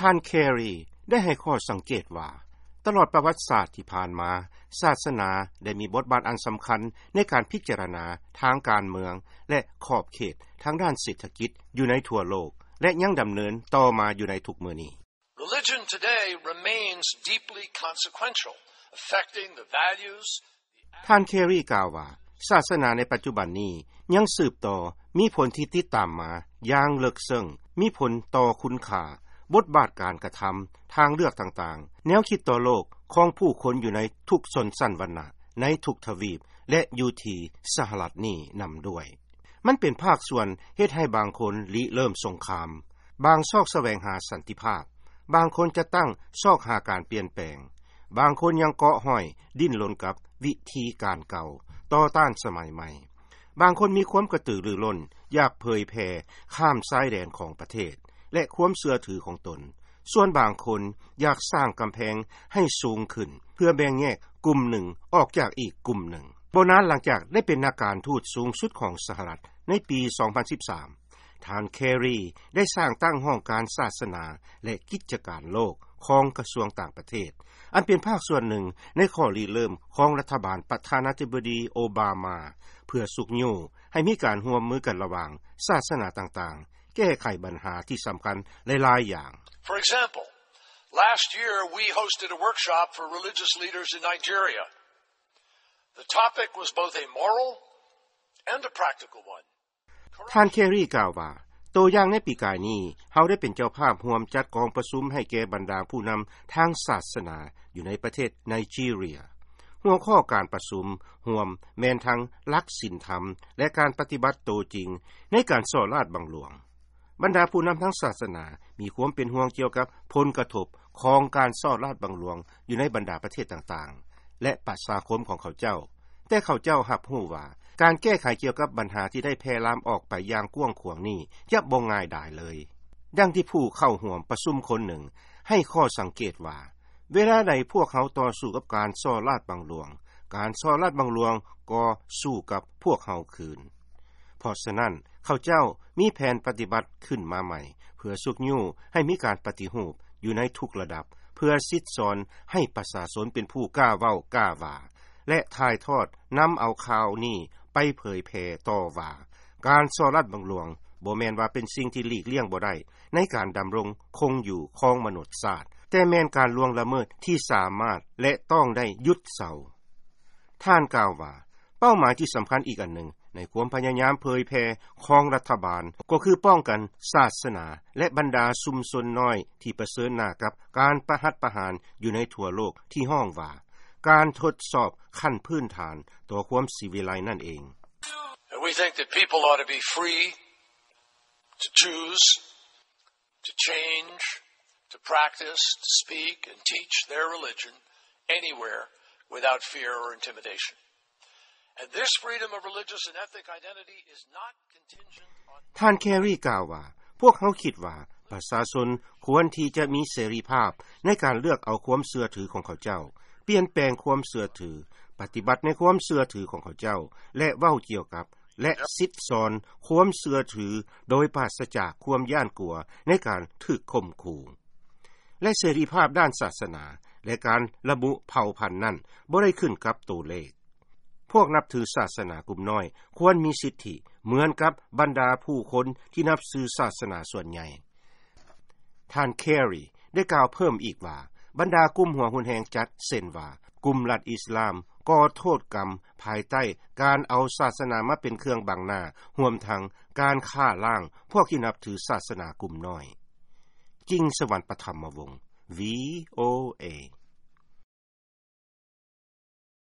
ທ່ານ Carey ໄດ້ໃຫ້ຂໍ້ສັງເກດວ່າ ຕະຫຼອດປະຫວັດສາດທີ່ຜ່ານມາ, ສາສະໜາໄດ້ມີບົດບາດອັນສຳຄັນໃນການພິຈາລະນາທາງການເມືອງ ແລະ ຂອບເຂດທາງດ້ານເສດຖະກິດຢູ່ໃນທົ່ວໂລກ ແລະ ຍັງດຳເນີນຕໍ່ມາຢູ່ໃນທຸກມື້ນີ້. Religion today remains deeply consequential, affecting the values. ທ່ານ Carey ກ່າວວ່າ ສາສະໜາໃນປັດຈຸບັນນີ້ຍັງສືບຕໍ່ມີຜົນທີ່ຕິດຕາມມາຢ່າງເລິກເຊິ່ງ, ມີຜົນຕໍ່ຄຸນຄ່າ, ບົດບາດການກະທຳ, ທາງເລືອກຕ່າງໆ, ແນວຄິດຕໍ່ໂລກຂອງຜູ້ຄົນຢູ່ໃນທຸກຊົນຊັ້ນວັນນະ, ໃນທຸກທະວີບ ແລະ ຢູ່ທີ່ສະຫະລັດນີ້ນຳດ້ວຍ. ມັນເປັນພາກສ່ວນເຮັດໃຫ້ບາງຄົນລິເລີ່ມສົງຄາມ, ບາງຊອກສະແຫວງຫາສັນຕິພາບ, ບາງຄົນຈັດຕັ້ງຊອກຫາການປ່ຽນແປງ, ບາງຄົນຍັງເກາະຫ້ອຍດີ້ນລົນກັບວິທີການເກົ່າ, ຕໍ່ຕ້ານສະໄໝໃໝ່. ບາງຄົນມີຄວາມກະຕືລືລົ້ນ, ຢາກເຜີຍແຜ່ຂ້າມຊາຍແດນຂອງປະເທດ ແລະ ຄວາມເຊື່ອຖືຂອງຕົນ. ສ່ວນບາງຄົນຢາກສ້າງກຳແພງໃຫ້ສູງຂຶ້ນ ເພື່ອແບ່ງແຍກກຸ່ມໜຶ່ງອອກຈາກອີກກຸ່ມໜຶ່ງ. ບໍ່ນານຫຼັງຈາກໄດ້ເປັນນັກການທູດສູງສຸດຂອງສະຫະລັດໃນປີສອງພັນສິບສາມ, ທ່ານ Carey ໄດ້ສ້າງຕັ້ງຫ້ອງການສາສະໜາ ແລະ ກິດຈະການໂລກຂອງກະຊວງຕ່າງປະເທດ, ອັນເປັນພາກສ່ວນໜຶ່ງໃນຂໍ້ລິເລີ່ມຂອງລັດຖະບານປະທານາທິບໍດີໂອບາມາ ເພື່ອຊຸກຍູ້ໃຫ້ມີການຮ່ວມມືກັນລະຫວ່າງສາສະໜາຕ່າງໆ ແກ້ໄຂບັນຫາທີ່ສຳຄັນຫຼາຍໆຢ່າງ. For example, last year we hosted a workshop for religious leaders in Nigeria. The topic was both a moral and a practical one. ທ່ານ Carey ກ່າວວ່າ ໂຕຢ່າງໃນປີກາຍນີ້ ເຮົາໄດ້ເປັນເຈົ້າພາບຮ່ວມຈັດກອງປະຊຸມໃຫ້ແກ່ບັນດາຜູ້ນຳທາງສາສະໜາຢູ່ໃນປະເທດໄນຈີເຣຍ. ຫົວຂໍ້ການປະຊຸມຮ່ວມແມ່ນທັງຫຼັກສິນທຳ ແລະ ການປະຕິບັດໂຕຈິງໃນການສໍ້ລາດບັງຫຼວງ. ບັນດາຜູ້ນຳທາງສາສະໜາມີຄວາມເປັນຫ່ວງກ່ຽວກັບຜົນກະທົບຂອງການສໍ້ລາດບັງຫຼວງຢູ່ໃນບັນດາປະເທດຕ່າງໆ ແລະ ປະຊາຄົມຂອງເຂົາເຈົ້າ, ແຕ່ເຂົາເຈົ້າຮັບຮູ້ວ່າ ການແກ້ໄຂກ່ຽວກັບບັນຫາທີ່ໄດ້ແຜ່ລາມອອກໄປຢ່າງກວ້າງຂວາງນີ້ຈະບໍ່ງ່າຍດາຍເລີຍ. ດັ່ງທີ່ຜູ້ເຂົ້າຮ່ວມປະຊຸມຄົນໜຶ່ງໃຫ້ຂໍ້ສັງເກດວ່າ ເວລາໃດພວກເຮົາຕໍ່ສູ້ກັບການສໍ້ລາດບັງຫຼວງ, ການສໍ້ລາດບັງຫຼວງກໍສູ້ກັບພວກເຮົາຄືນ. ເພາະສະນັ້ນ ເຂົາເຈົ້າມີແຜນປະຕິບັດຂຶ້ນມາໃໝ່ ເພື່ອຊຸກຍູ້ໃຫ້ມີການປະຕິຮູບຢູ່ໃນທຸກລະດັບ ເພື່ອສິດສອນໃຫ້ປະຊາຊົນເປັນຜູ້ກ້າເວົ້າກ້າວ່າ ແລະ ຖ່າຍທອດນຳເອົາຂ່າວນີ້ໄປເຜີຍແຜ່ຕໍ່ວ່າ ການສໍ້ລາດບັງຫຼວງບໍ່ແມ່ນວ່າເປັນສິ່ງທີ່ຫຼີກລ່ຽງບໍ່ໄດ້ໃນການດຳລົງຄົງຢູ່ຂອງມະນຸດຊາດ, ແຕ່ແມ່ນການລ່ວງລະເມີດທີ່ສາມາດ ແລະ ຕ້ອງໄດ້ຢຸດເຊົາ. ທ່ານກ່າວວ່າ ເປົ້າໝາຍທີ່ສຳຄັນອີກອັນໜຶ່ງໃນຄວາມພະຍາຍາມເຜີຍແຜ່ຂອງລັດຖະບານ ກໍຄືປ້ອງກັນສາສະໜາ ແລະ ບັນດາຊຸມຊົນນ້ອຍທີ່ປະເຊີນໜ້າກັບການປະຫັດປະຫານຢູ່ໃນທົ່ວໂລກທີ່ຮ້ອງວ່າ ການທົດສອບຂັ້ນພື້ນຖານຕໍ່ຄວາມສີວິໄລນັ້ນເອງ. And we think that people ought to be free to choose, to change, to practice, to speak, and teach their religion anywhere without fear or intimidation. And this freedom of religious and ethnic identity is not contingent on ທ່ານ Carey ກ່າວວ່າ ພວກເຮົາຄິດວ່າປະຊາຊົນຄວນທີ່ຈະມີເສລີພາບໃນການເລືອກເອົາຄວາມເຊື່ອຖືຂອງເຂົາເຈົ້າ, ປ່ຽນແປງຄວາມເຊື່ອຖື, ປະຕິບັດໃນຄວາມເຊື່ອຖືຂອງເຂົາເຈົ້າ ແລະ ເວົ້າກ່ຽວກັບ ແລະ ສິດສອນຄວາມເຊື່ອຖືໂດຍປາສະຈາກຄວາມຢ້ານກົວໃນການຖືກຂົ່ມຂູ່. ແລະ ເສລີພາບດ້ານສາສະໜາ ແລະ ການລະບຸເຜົ່າພັນນັ້ນບໍ່ໄດ້ຂຶ້ນກັບໂຕເລກ. ພວກນັບຖືສາສະໜາກຸ່ມນ້ອຍຄວນມີສິດທິເໝືອນກັບບັນດາຜູ້ຄົນທີ່ນັບຖືສາສະໜາສ່ວນໃຫຍ່. ທ່ານ Carey ໄດ້ກ່າວເພີ່ມອີກວ່າ ບັນດາກຸ່ມຫົວຮຸນແຮງຈັດ ເຊັ່ນວ່າ ກຸ່ມລັດອິດສະລາມ ກໍໂທດກຳພາຍໃຕ້ການເອົາສາສະໜາມາເປັນເຄື່ອງບັງໜ້າ, ຮວມທັງການຂ້າລ້າງພວກທີ່ນັບຖືສາສະໜາກຸ່ມນ້ອຍ. ຈິງສະຫວັນ ປະຖຳມະວົງ VOA.